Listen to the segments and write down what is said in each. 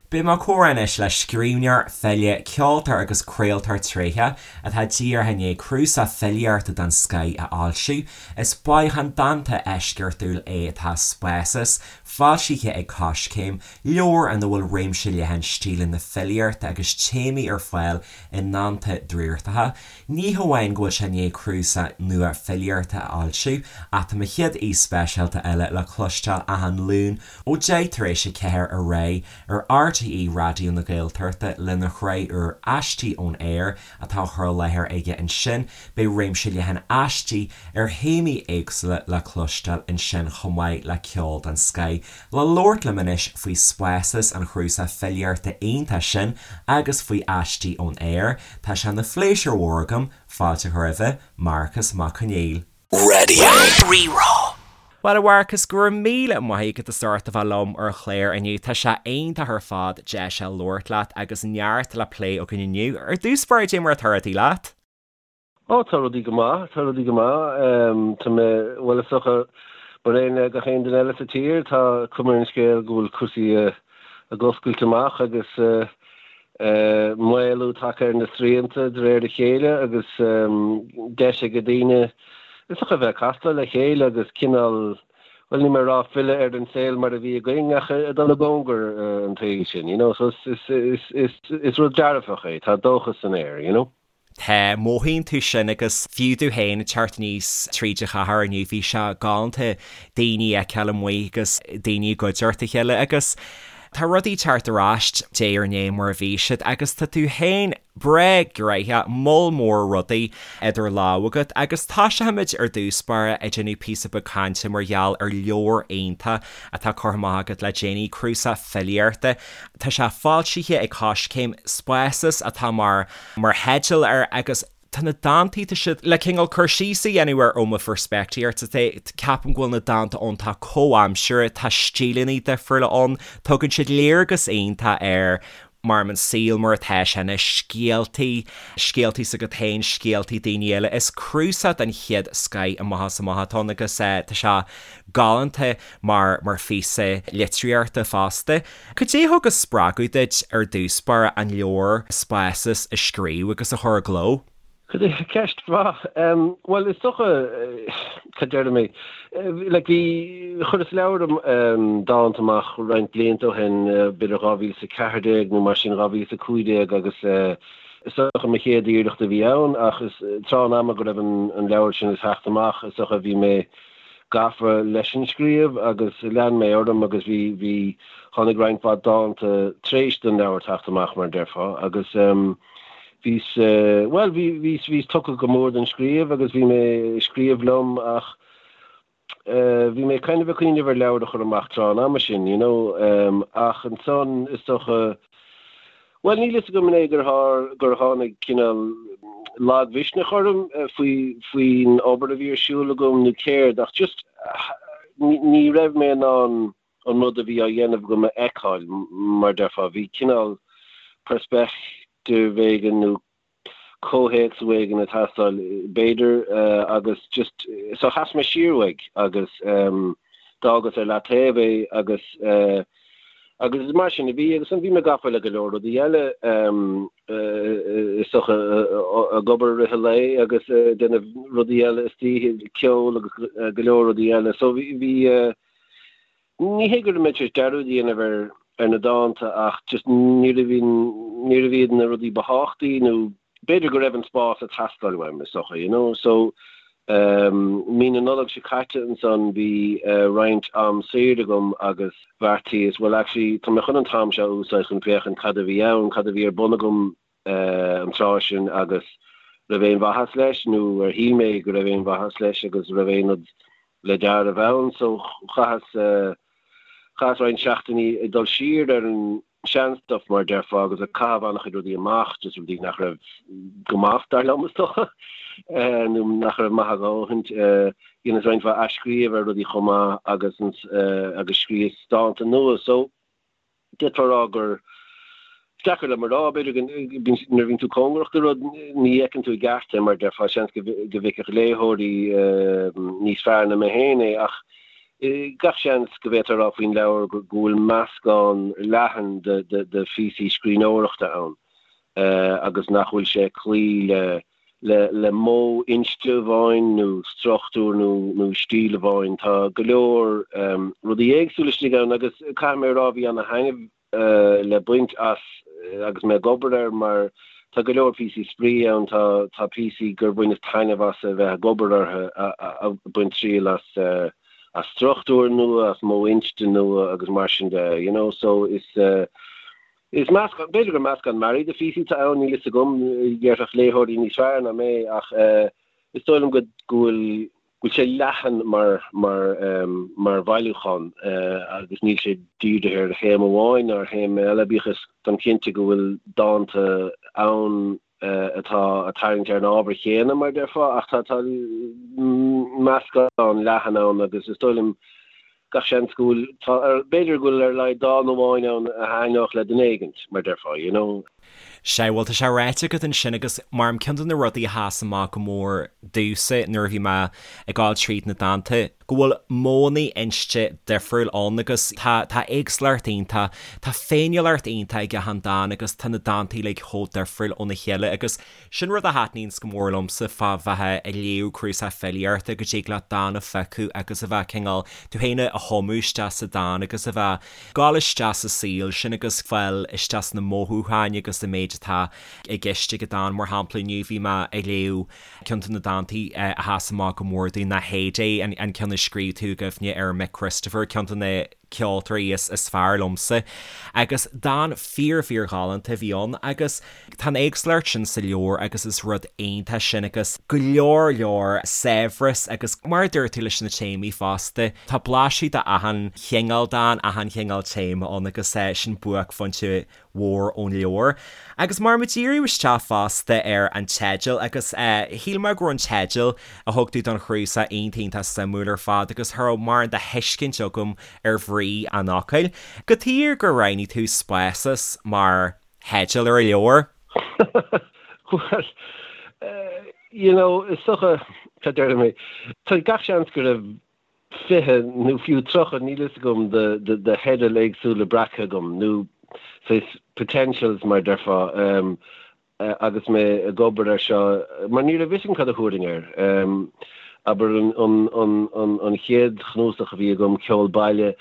Beidh mé ag comhrá anois le scríbhneoir, file, ceoltóir agus craoltóir tréitheach atá díreach i ndiaidh cnuasach filíochta den scoith a fhoilsiú. Is bailiúchán dánta eisceachtúil é atá Spásas, foilsithe ag Coiscéim, leabhar ina bhfuil réimse leathan stíleanna filíochta agus téamaí ar fáil i ndánta draíochtacha. Ní hamháin go bhfuil sé i ndiaidh cnuasach nua filíochta a fhoilsiú, ach tá mo chéad aoi speisialta eile le cloisteáil achan Luan ó 4:10 ar aghaidh ar RTÉ Raidió na Gaeltachta lena shraith úr Aistí ón Aer atá á chur i láthair aige ansin. Beidh réimse leathan aistí ar théamaí éagsúla le cloisteáil ansin chomh maith le ceol den scoith. Le labhairt liom anois faoi Spásas, an chnuasach filíochta iontach sin agus faoi Aistí ón Aer, tá sé ina phléisiúr mhór agam fáilte a chur roimhe, Marcas Mac Conghail. Radio Rí-Rá. Bhuel a Mharcais, go raibh míle maith agat as ucht a bheith liom ar an chlár inniu. Tá sé iontach ar fad deis a labhairt leat agus neart le plé againn inniu. Ar dtús báire, cad é mar atá rudaí leat? Ó, tá rudaí go maith, tá rudaí go maith. Tá mé, bhuel is dócha, mar aon le gach aon duine eile sa tír, tá cuma ar an scéal go bhfuil cúrsaí ag oscailt amach agus maolú tagtha ar na srianta de réir a chéile agus deis ag daoine is dócha a bheith ag castáil le chéile agus cineál, bhuel níl mé ag rá filleadh ar an saol mar a bhí againn ach ag dul i gcóngar an tsaoil sin, you know, so is rud dearfach é, tá dóchas san aer, you know. Tá, mothaíonn tú sin agus fiú domh féin ag teacht aníos tríd an chathair inniu bhí sé galánta daoine a fheiceáil amuigh agus daoine i gcuideachta a chéile agus tá rudaí ag teacht ar ais diaidh ar ndiaidh mar a bhí siad agus tá tú féin breá gnoitheach, moll mór rudaí idir lámha agat agus toiseochaimid ar dtús báire ag déanamh píosa beag cainte mar gheall ar leabhar iontach atá curtha amach agat le déanaí, cnuasach filíochta. Tá sé foilsithe ag Coiscéim, Spásas atá mar mar theideal air agus tá na dántaí, tá siad le cineál cur síos a dhéanamh air ó mo pheirspictíocht, ceapaim go bhfuil na dánta iontach comhaimseartha, tá stíleanna difriúla ann, tugann siad léargas iontach ar mar an saol mar atá sé anois, scéaltaí, scéaltaí s'agat féin, scéaltaí daoine eile. Is cnuasach den chéad scoith amach is amach atá ann agus tá sé galánta mar mar phíosa litríochta fosta. Cad é a thug an spreagadh duit ar dtús báire an leabhar Spásas a scríobh agus a chur i gcló? Ceist mhaith. Bhuel, is dócha, cad déarfaidh mé, like bhí, chuireas leabhar dánta amach roinnt blianta ó shin, b'fhéidir 2014 nó mar sin, 2015 agus is dócha mo chéad iarracht a bhí ann ach is tráth an ama go raibh an leabhar sin ag teacht amach, is dócha bhí mé gafa leis an scríobh agus lean mé orm agus bhí, bhí, tháinig roinnt mhaith dánta tar éis don leabhar teacht amach mar a déarfá agus bhíos, bhuel bhí, bhíos, bhíos tugtha go mór don scríobh agus bhí mé ag scríobh liom ach bhí mé kind of ag cuimhneamh ar leabhar a chur amach tráth an ama sin, you know, ach ansan is dócha, Bhuel, níl fhios agam an é gur gur tháinig cineál lagmhisneach orm faoi faoin obair a bhí ar siúl agam nó céard ach just ní raibh mé in ann an rud a bhí á dhéanamh agam a fheiceáil, mar déarfá. Bhí cineál peirspictíocht éigin nó comhthéacs éigin ag teastáil, b'fhéidir, agus just, so sheas mé siar uaidh agus d'fhágas ar leataobh é agus agus is mar sin a bhí agus bhí mé gafa le go leor rudaí eile is dócha ag obair i rith an lae agus ag déanamh rudaí eile istoíche, ceol agus go leor rudaí eile so bhí bhí Ní hé go raibh mé tar éis dearúd a dhéanamh ar ar na dánta ach just níorbh níorbh iad na rudaí ba thábhachtaí nó b'fhéidir go raibh an spás ag teastáil uaim is dócha, you know. So ehm mí na Nollag seo caite ansan bhí roinnt am saor agam agus bheartaíos well actually tá mé chun an t-am seo a úsáid chun féachaint cad a bhí ann, cad a bhí ar bun agam an tráth sin agus raibh aon mhaitheas leis nó ar shíl mé go raibh aon mhaitheas leis agus raibh aon rud le dealramh ann so chaitheas chaitheas roinnt seachtainí ag dul siar ar an sean-stuff mar a déarfá agus ag caitheamh an-chuid rudaí amach just rudaí nach raibh go maith dar liom is dócha nó nach raibh maith a dhóthaint dheineas roinnt mhaith athscríobh ar rudaí chomh maith agus agus scríos dánta nua so D'fhéadfá a rá gur deacair liom a rá, b'fhéidir go nuair a bhíonn tú cóngarach do rud, ní fheiceann tú i gceart é, mar a déarfá, seans go bhfeicfeadh léitheoirí níos fearr ná mé féin é, ach. Gach seans go bhféadfá a rá faoin leabhar go bhfuil meascán leathan de phíosaí scríbhneoireachta ann agus nach bhfuil sé ag cloí le le modh inste amháin nó struchtúr nó stíl amháin. Tá go leor rudaí éagsúla istigh ann agus caithfidh mé a rá bhí ana-thaitneamh le baint as agus mé ag obair air mar tá go leor píosaí spraoi ann, tá tá píosaí gur bhaineas taitneamh as a bheith ag obair orthu, ag baint triail as as struchtúr nua, as modh inste nua agus mar sin de, you know, so is is meascán, b'fhéidir gur meascán mearaí de phíosaí atá ann, níl fhios agam, déarfadh léitheoirí níos fearr ná mé ach is dóigh liom go go bhfuil go bhfuil sé leathan mar mar mar bhailiúchán agus níl sé dírithe ar théama amháin ná ar théama eile, bíodh is táim cinnte go bhfuil dánta ann atá ag tarraingt ar an ábhar chéanna, mar a déarfá, ach tá tá meascán leathan ann agus is dóigh liom gach seans go bhfuil, tá, b'fhéidir go bhfuil ar a laghad dán amháin ann a thaitneodh le duine éigint, mar a déarfá, you know. Sea, bhuel, tá sé ráite agat ansin agus mar ceann de na rudaí a sheas amach go mór domhsa nuair a bhí mé ag gabháil tríd na dánta, go bhfuil modhanna inste difriúil ann agus tá, tá éagsúlacht iontach, tá féiniúlacht iontach ag achan dán agus tá na dánta uilig chomh difriúil óna chéile agus Sin rud a thaitníonns go mór liomsa fá bheith ag léamh cnuasach filíochta, go dtig leat dán a phiocadh agus a bheith cineál tú féin a thumadh isteach sa dán agus a bheith gabháil isteach sa saol sin agus fáil isteach sna mothúcháin agus sa méid atá i gceist ag an dán. Mar shampla, inniu bhí mé ag léamh ceann de na dántaí a sheas amach go mór domh ná Heyday, an ceann a scríobh tú i gcuimhne ar Mick Christopher, ceann de na ceoltóirí is fearr liomsa. Agus dán fíor fíor ghalánta a bhí ann agus tá an éagsúlacht sin sa leabhar agus is rud iontach sin agus go leor leor saibhreas agus mar a dúirt tú leis na téamaí fosta, tá blaiseadh de achan chineál dán, achan chineál téama ann agus sin buaicphointe mhór ón leabhar. Agus mar muid díriú isteach fosta ar an teideal agus shíl mé go raibh an teideal a thug tú don chnuasach iontach iontach suimiúil ar fad agus cha raibh mórán de thuiscint agam ar bhrí an fhocail. Cad chuige gur roghnaigh tú Spásas mar theideal ar an leabhar? Bhuel, you know, is dócha, cad déarfaidh mé, tá gach seans go raibh 20 nó fiú 30, níl fhios agam, de theidil éagsúla breactha agam, nó saghas potentials mar a déarfá, agus mé ag obair air seo, mar ní raibh fhios agam cad a thabharfainn air. Abair an chéad chnuasach a bhí agam, Ceol Baile,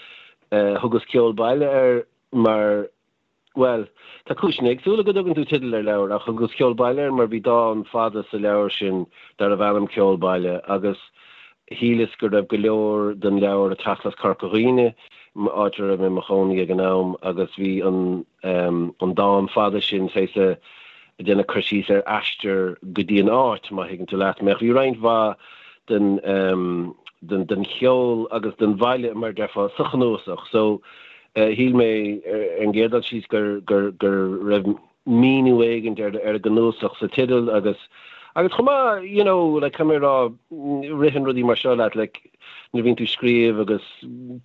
thugas Ceol Baile air mar Bhuel, tá cúiseanna éagsúla go dtugann tú teideal ar leabhar, ach thugas Ceol Baile air mar bhí dán fada sa leabhar sin darbh ainm Ceol Baile agus shíleas go raibh go leor den leabhar ag teacht as Corca Dhuibhne, áit a raibh mé i mo chónaí ag an am, agus bhí an an dán fada sin saghas ag déanamh cur síos ar aistear go dtí an áit, má thuigeann tú leat mé. Ach bhí roinnt mhaith den den den cheol agus den bhaile, mar a déarfá, sa chnuasach. So, Shíl mé ar an gcéad dul síos gur raibh míniú éigin ar an gcnuasach sa teideal agus agus chomh maith, you know, like caithfidh mé a rá, ritheann rudaí mar seo leat, like nuair a bhíonn tú ag scríobh agus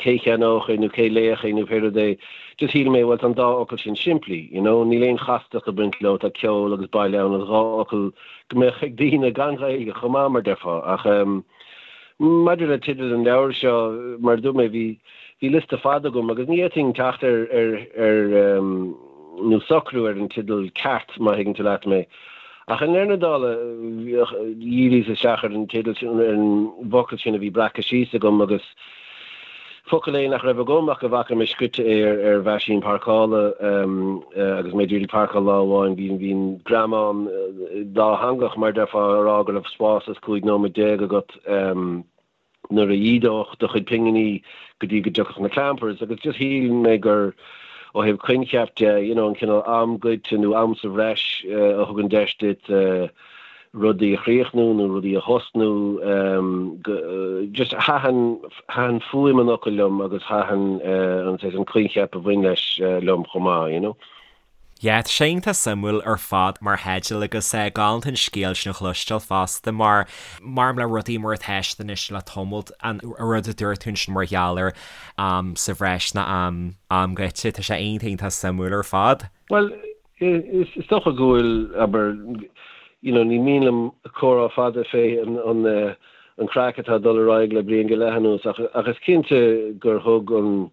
cé cheannódh é nó cé léifeadh é nó pé rud é, just shíl mé, bhuel tá an dá fhocal sin simplí, you know, níl aon chastacht ag baint leo, tá ceol agus baile ann agus dhá fhocal go mbeadh ag daoine gan Ghaeilge chomh maith mar déarfá ach ehm maidir le teideal an leabhair seo, mar a dúirt mé, bhí Bhí liosta fada agam agus ní fhéadfainn teacht ar, ar, ar, nó socrú ar an teideal ceart, má thuigeann tú leat mé. Ach i ndeireadh na dála, dhíríos isteach ar an teideal sin, ar an bhfocal sin a bhí breactha síos agam agus focal é nach raibh agam ach go bhfaca mé scrite é ar, ar mheaisín páirceála agus mé ag iarraidh páirceáil lá amháin. Bhí, bhí an greamán dátheangach, mar a déarfá, ag rá go raibh spás is 15 nóiméad agat. nuair a dh'ídeodh do chuid pinginí go dtí go dtiocfadh na clampers agus just shíl mé gur ó thaobh coincheap de, you know, an cineál am goidte nó am sa bhreis a thugann deis duit rudaí a chríochnú nó rudaí a thosnú, just thaitin, thaitin fuaim an fhocail liom agus thaitin an saghas an coincheap a bhain leis liom chomh maith, you know. Yeah, tá sé iontach suimiúil ar fad mar theideal agus galánta an scéal sin a chloisteáil fosta mar mar le rudaí mar atá siad anois le tamalt, an rud a dúirt tú ansin mar gheall ar am sa bhreis ná am am goidte, tá sé iontach iontach suimiúil ar fad. Bhuel, is dócha go bhfuil, abair, you know, ní mian liom comhrá fada fé an, an. an craic atá ag dul ar aghaidh le bliain go leith anuas ach ach is cinnte gur thug an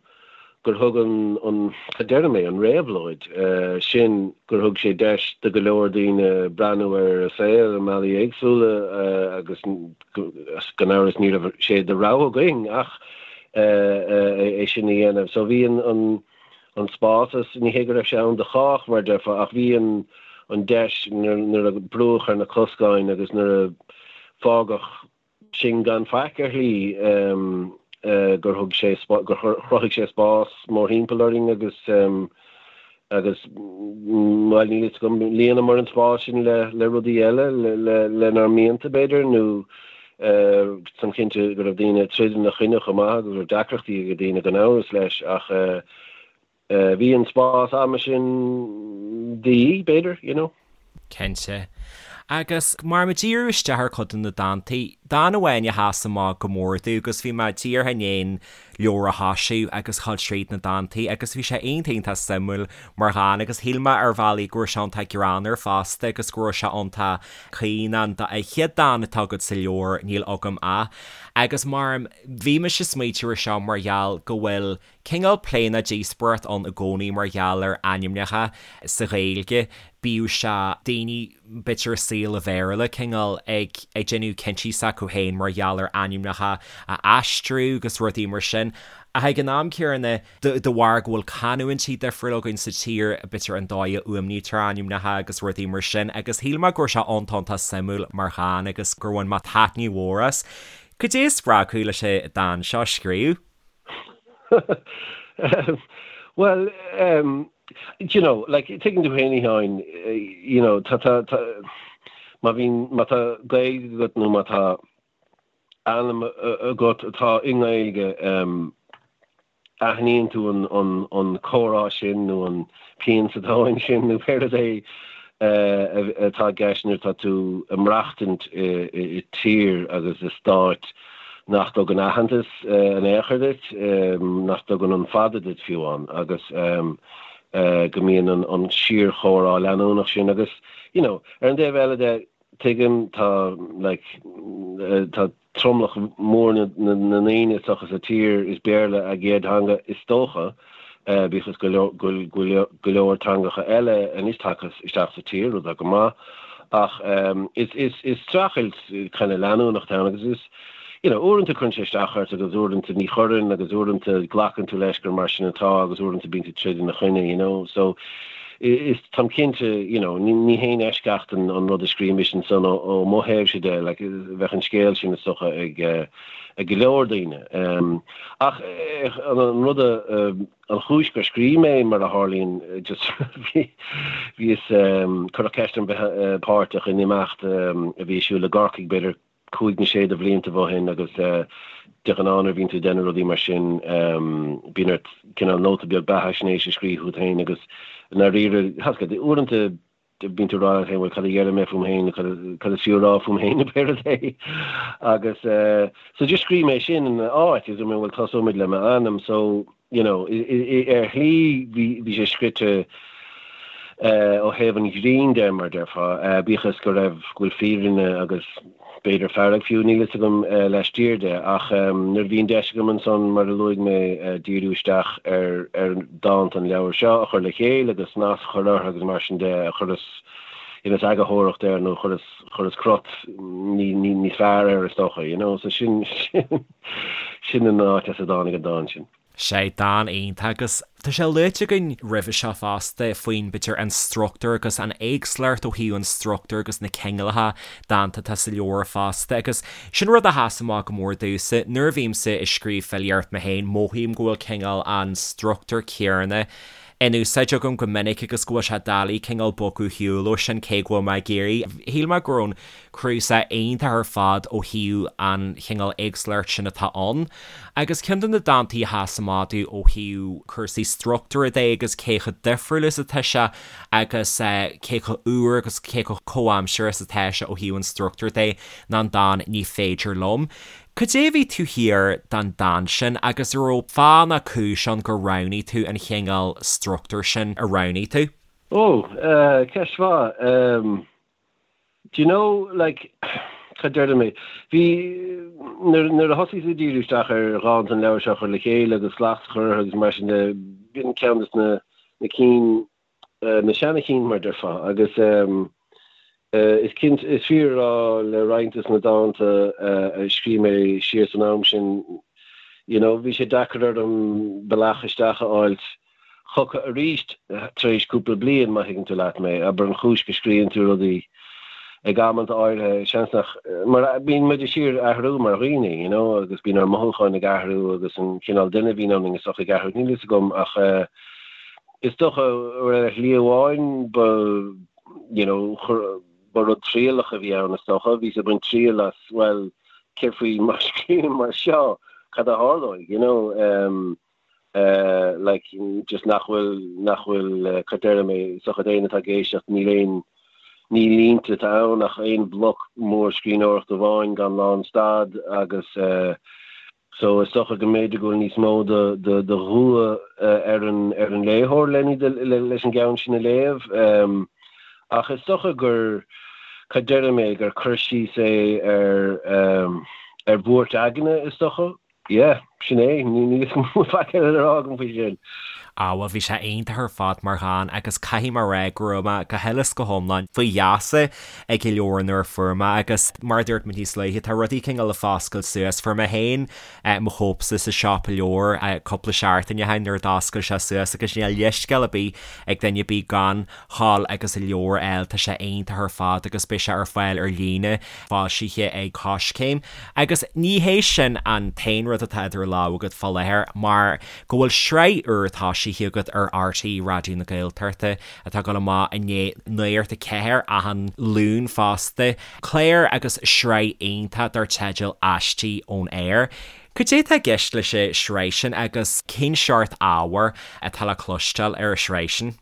gur thug an an cad déarfaidh mé an réabhlóid sin gur thug sé deis do go leor daoine breathnú ar a saol i mbealaí éagsúla agus gan amhras ní raibh sé de rogha againn ach é sin a dhéanamh. So bhí an an an spás is ní hé go raibh sé ann do chách mar a déarfá ach bhí an an deis nuair a brúdh ar na coscáin agus nuair a fágadh sinn gan faic ar shlí gur thug sé gur chruthaigh sé spás mórthimpeall orainn agus agus bhuel níl fhios agam líonamar an spás sin le le rudaí eile le lenár mianta b'fhéidir nó táim cinnte go raibh daoine ag troid ina choinne chomh maith agus go raibh deacrachtaí ag daoine gan amhras leis ach bhí an spás ama sin de dhíth, b'fhéidir, you know. Cinnte. Agus mar muid ag díriú isteach ar chuid de na dántaí, dán amháin a sheas amach go mór domh agus bhí mé díreach i ndiaidh an leabhar a thoisiú agus dhul tríd na dántaí agus bhí sé iontach iontach suimiúil mar dhán agus shíl mé ar bhealaí go raibh sé iontach greannmhar fosta agus go raibh sé iontach caoin an chéad dán atá agat sa leabhar Níl Agam Ach agus mar bhí mise ag smaoitiú ar seo mar gheall go bhfuil cineál plé nó díospóireacht ann i gcónaí mar gheall ar ainmneacha sa Ghaeilge, bíodh sé daoine b'fhéidir i saol an Bhéarla cineál ag ag déanamh cinntí s'acu féin mar gheall ar ainmneacha a aistriú agus rudaí mar sin. Ach ag an am céanna, de bharr go bhfuil canúintí difriúla againn sa tír, b'fhéidir an dóigh a fhuaimnítear ainmneacha agus rudaí mar sin agus shíl mé go raibh sé iontach iontach suimiúil mar dhán agus gur bhain mé taitneamh mhór as. Cad é a spreag thú leis an dán seo a scríobh? Bhuel, do you know, like, tuigeann tú féin, a Sheáin, you know, tá, tá, tá, má bhíonn, má tá Gaeilge agat nó má tá ainm agat atá i nGaeilge, aithníonn tú an, an, an comhrá sin nó an pian sa tóin sin nó pé rud é atá i gceist nuair atá tú ag maireachtaint i tír agus i stát nach dtugann aitheantas in aon chor duit, nach dtugann an fada duit fiú amháin agus go mbíonn an síorchomhrá leanúnach sin agus, you know, ar an dtaobh eile de, tuigim, tá, like, tá tromlach mór na ndaoine is dócha sa tír, is Béarla a gcéad theanga is dócha, bíodh is go bhfuil go leor teangacha eile anois tagtha isteach sa tír, rud atá go maith, ach is streachailt kind of leanúnach atá ann agus is, you know, uaireanta cuireann sé isteach ort agus uaireanta ní chuireann agus uaireanta glacann tú leis gur mar sin atá agus uaireanta bíonn tú ag troid ina choinne, you know. So is, táim cinnte, you know, ní haon eisceacht an rud a scríobh mise ansan ó mo thaobhse de, like, bheadh an scéal sin is dócha ag ag go leor daoine. Ach an rud a, an chúis gur scríobh mé, mar a tharlaíonn, just bhí, bhíos, cuireadh ceist orm bheith páirteach in imeacht a bhí ar siúl i gCorcaigh b'fhéidir cúig nó sé de bhlianta ó shin agus de ghnáth nuair a bhíonn tú ag déanamh rudaí mar sin bíonn ort cineál nóta beag beathaisnéise a scríobh fút féin agus i ndáiríre, tá a fhios agat, uaireanta bíonn tú ag rá leat féin bhuel cad a dhéarfaidh mé fúm féin nó cad is fiú a rá fúm féin nó pé rud é agus so just scríobh mé sin ina áit agus dúirt mé bhuel tosóimid le m'ainm so you know, ar shlí bhí sé scrite ó thaobh an ghrinn de, mar a déarfá, bíodh is go raibh, go bhfuil fírinne agus b'fhéidir fearg fiú, níl fhios agam, laistiar de. Ach nuair a bhí an deis agam ansan, mar a luaigh mé, díriú isteach ar ar dánta an leabhair seo a chur le chéile agus snas a chur orthu agus mar sin de, chuireas, dheineas eagarthóireacht air nó chuireas, chuireas crot níos fearr air is dócha, you know, so sin, sin. Sin an áit as a dtáinig an dán sin. Sea, dán iontach agus tá sé luaite againn roimhe seo fosta faoin, b'fhéidir, an struchtúr agus an éagsúlacht ó thaobh an struchtúir agus na cineálacha dánta atá sa leabhar fosta agus sin rud a sheas amach go mór domhsa. Nuair a bhímse ag scríobh filíocht mé féin, mothaím go bhfuil cineál an struchtúr céanna in úsáid agam go minic agus go bhfuil sé doiligh cineál bogadh ar shiúl ó sin cé go bhfuil mé ag iarraidh. Shíl mé go raibh an cnuasach iontach ar fad ó thaobh an chineál éagsúlacht sin atá ann. Agus ceann de na dántaí a sheas amach domh ó thaobh cúrsaí struchtúir de agus cé chomh difriúil is atá sé agus cé chomh úr agus cé chomh comhaimseartha is atá sé ó thaobh an struchtúir de ná an dán 'Ní Féidir Liom'. Cad é a bhí taobh thiar den dán sin agus an raibh fáth ná cúis ann gur roghnaigh tú an chineál struchtúir sin a roghnaigh tú? Ó, ceist mhaith. Do you know, like, Cad déarfaidh mé? Bhí, nuair, nuair a thosaíos ag díriú isteach ar dhánta an leabhair seo a chur le chéile agus slacht a chur orthu agus mar sin de, b'in ceann de na, na cinn, na seana chinn mar déarfá agus is cinnte, is fíor a rá le roinnt de na dánta a scríobh mé siar san am sin, you know, bhí sé deacair orm bealach isteach a fháilt chucu arís tar éis cúpla bliain, má thuigeann tú leat mé. Abair an chúis go scríobhann tú rudaí ag amanta áirithe, seans nach, mar bíonn muid de shíor ag athrú mar dhaoine, you know, agus bíonn ár mothúcháin ag athrú agus an cineál duine a bhíonn ionainn is dócha ag athrú, níl fhios agam ach is dócha ar shlí amháin ba, you know, ba rud trialach a bhí ann is dócha, bhíos ag baint triail as, bhuel, céard faoi má scríobhaim mar seo, cad a tharlóidh, you know. Like, just nach bhfuil, nach bhfuil, cad déarfaidh mé, is dócha d'éinne atá ag éisteacht, níl aon, ní línte atá ann ach aon bhloc mór scríbhneoireachta amháin gan lánstad agus so is dócha go mb'fhéidir go bhfuil níos mó de, de, de dhua ar an, ar an léitheoir le, leis an gceann sin a léamh. Ach is dócha gur, cad déarfaidh mé, gur cur síos é ar, ar bhuairt aigne is dócha. Yeah, sin é. Níl faic eile le rá agam faoi sin. Ah bhuel bhí sé iontach ar fad mar dhán agus caithfidh mé a rá go raibh mé go huile is go hiomlán faoi gheasa ag an leabhar nuair a fuair mé agus mar a dúirt mé níos luaithe tá rudaí cineál ag foscailt suas. Fuair mé féin mo chóipse sa siopa leabhar cúpla seachtain ó shin nuair a d'oscail sé suas agus níl leithscéal ar bith ag duine ar bith gan ghabháil agus an leabhar a fháil, tá sé iontach ar fad agus beidh sé ar fáil ar líne, foilsithe ag Coiscéim. Agus ní hé sin an t-aon rud atá idir lámha agat fá láthair mar go bhfuil sraith úr toisithe agat ar RTÉ Raidió na Gaeltachta atá ag dul amach i ndiaidh Nuacht a 4 achan Luan fosta, clár agus sraith iontach dar teideal Aistí ón Aer. Cad é atá i gceist leis an sraith sin agus cén seort ábhair atá le cloisteáil ar an sraith sin?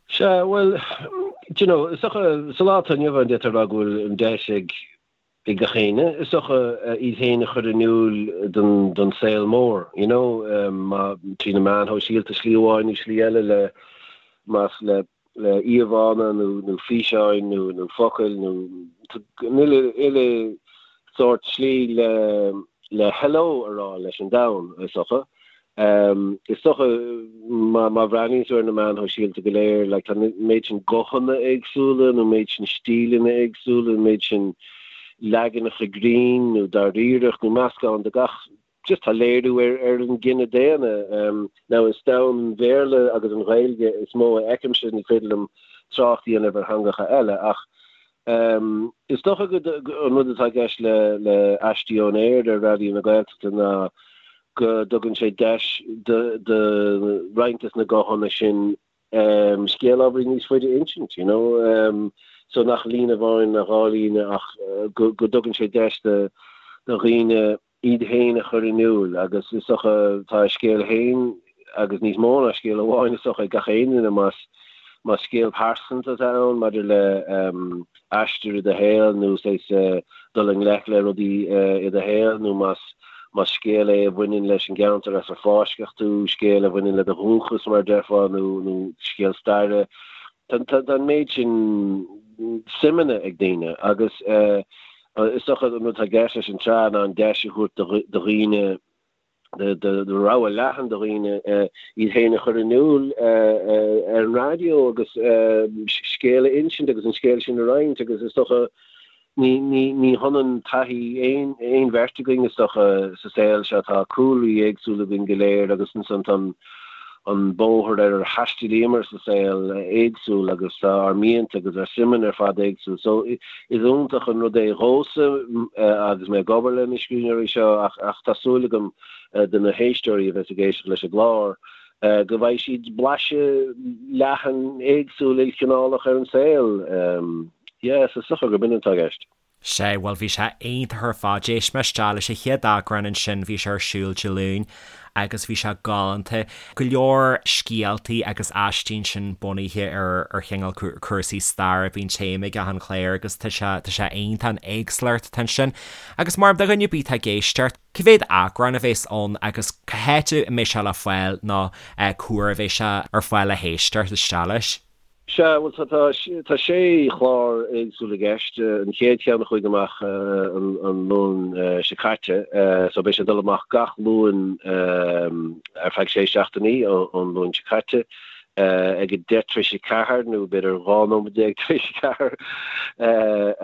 Sea, bhuel, do you know, is dócha, sa lá atá inniu ann, d'fhéadfá a rá go bhfuil an deis ag, ag gach éinne, is dócha, iad féin a chur in iúl don, don saol mór, you know, má, trí na meáin shóisialta, slí amháin nó slí eile le, más le, le íomhánna nó, nó físeáin nó, nó focail nó an uile, uile sórt slí le, le hello a rá leis an domhan, is dócha. Is dócha, má bhreathnaíonn tú ar na meáin shóisialta go léir, like, tá an méid sin guthanna éagsúla, nó an méid sin stíleanna éagsúla, an méid sin leaganacha grinn nó dáiríreacht nó meascán de gach, just tá léiriú ar ar an gcine daonna. Now is domhan an Bhéarla agus an Ghaeilge is mó a fheicimse, ní féidir liom trácht a dhéanamh ar theangacha eile ach is dócha go an rud atá i gceist le le Aistí ón Aer ar Raidió na Gaeltachta ná go dtugann sé deis do roinnt des na guthanna sin scéal ábhairín níos faide a insint, you know. So nach líne amháin ná dhá líne ach go dtugann sé deis do dhaoine iad féin a chur in iúl agus is dócha tá a scéal féin agus níos mó ná scéal amháin is dócha ag gach aon duine más más scéal pearsanta atá ann maidir le aistear i do shaol nó saghas dul i ngleic le rudaí i do shaol nó más más scéal é a bhaineann leis an gceantar as ar fáisceadh tú, scéal a bhaineann le do dhúchas mar a déarfá nó nó scéal staire. Tá tá an méid sin suimeanna ag daoine agus is dócha an rud atá i gceist leis an tsraith ná an deis a thabhairt do dhaoine do rogha leathan de dhaoine iad féin a chur in iúl ar an raidió agus scéal a insint agus an scéal sin a roinnt agus is dócha ní hionann taithí aon bheirt againn is dócha sa saol seo, tá cúlraí éagsúla againn go léir agus ansan tá an an bóthar ar ar thaistealaíomar sa saol éagsúil agus tá ár mianta agus ár suimeanna ar fad éagsúil. So is iontach an rud é dhomhsa agus mé ag obair le na scríbhneoirí seo ach ach tá súil agam do na héisteoirí a bheas ag éisteacht leis an gclár go bhfaighidh siad blaiseadh leathan éagsúil ilchineálach ar an saol. Yeah, so is dócha gurb in atá i gceist. Sea, bhuel bhí sé iontach ar fad. D'éist mé isteach leis an chéad eagrán ansin, bhí sé ar siúl Dé Luain agus bhí sé galánta. Go leor scéaltaí agus aistí ansin bunaithe ar ar chineál cúrsaí staire, bíonn téama ag achan chlár agus tá sé tá sé iontach an éagsúlacht atá ansin. Agus mar do dhuine ar bith atá ag éisteacht, cá mhéad eagrán a bheas ann agus cá háit a mbeidh sé le fáil nó cá huair a bheidh sé ar fáil le héisteacht isteach leis? Sea, bhuel tá, tá, tá sé chlár éagsúil i gceist. An chéad cheann a chuaigh amach an, an Luan seo caite, so beidh sé ag dul amach gach Luan ar feadh sé seachtainí ón Luan seo caite ag a 10 tar éis a 4 nó b'fhéidir 12 nóiméad tar éis a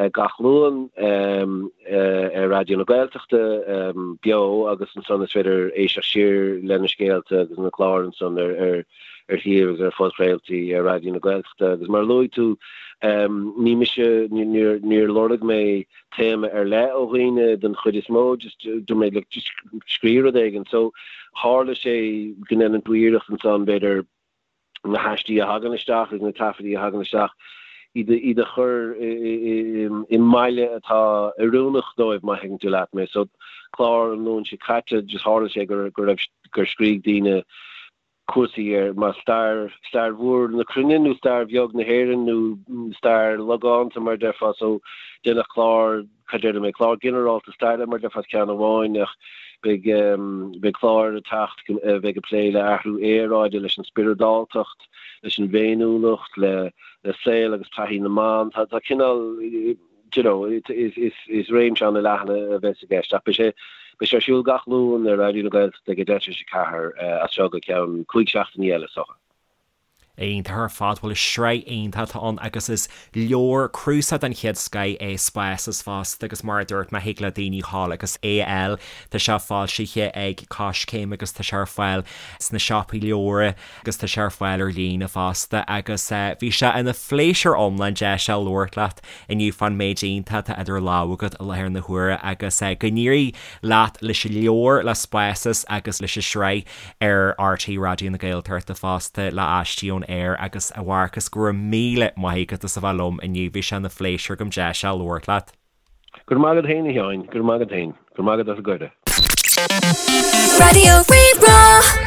4 gach Luan ar Raidió na Gaeltachta beo agus ansan is féidir éisteacht siar le na scéalta agus na cláir ansan ar, ar ar shuíomh agus ar phodchraoltaí ar Raidió na Gaeltachta agus mar a luaigh tú, ní mise, níor lorg mé téama ar leith ó dhaoine den chuid is mó, just dúirt mé look just scríobh rud éigin. So tharla sé go ndéanann tú iarracht ansan b'fhéidir na haistí a thagann isteach agus na taifeadtaí a thagann isteach, iad iad a chur i mbaile atá oiriúnach dóibh má thuigeann tú leat mé. So clár an Luain seo caite just tharla sé go raibh gur scrígh daoine cúrsaí ar mar stair, stair mhór na cruinne nó stair bheag na hÉireann nó stair logánta mar a déarfá so déanadh clár, cad déarfaidh mé, clár ginearálta staire mar a déarfá ceann amháin ach beidh, beidh cláir ag teacht a bheidh ag plé le athrú aeráide, leis an spioradáltacht, leis an bhféiniúlacht, le, le saol agus taithí na mban. Tá, tá cineál, do you know, is réimse an-leathan a bheas i gceist ach beidh sé beidh sé ar siúl gach Luan ar Raidió na Gaeltachta ag a 3:10 as seo go ceann 5 seachtainí eile is dócha. Iontach ar fad, bhuel is sraith iontach atá ann agus is leabhar cnuasach den chéad scoith é Spásas fosta agus mar a dúirt mé thig le daoine dhul agus é a fháil, tá sé foilsithe ag Coiscéim agus tá sé ar fáil sna siopaí leabhar. agus tá sé ar fáil ar líne fosta agus bhí sé ina phléisiúr iomlán deis a labhairt leat inniu fán méid iontach atá idir lámha agat i láthair na huaire agus go n-éirí leat leis an leabhar, le Spásas agus leis an sraith ar RTÉ Raidió na Gaeltachta fosta le Aistí ón Aer agus a Mharcas go raibh míle maith agat as a bheith liom inniu, bhí sé ina phléisiúr agam deis a labhairt leat. Go raibh maith agat féin a Sheáin, go raibh maith agat féin. Go raibh maith agat as an gcuireadh. Raidió Rí-Rá.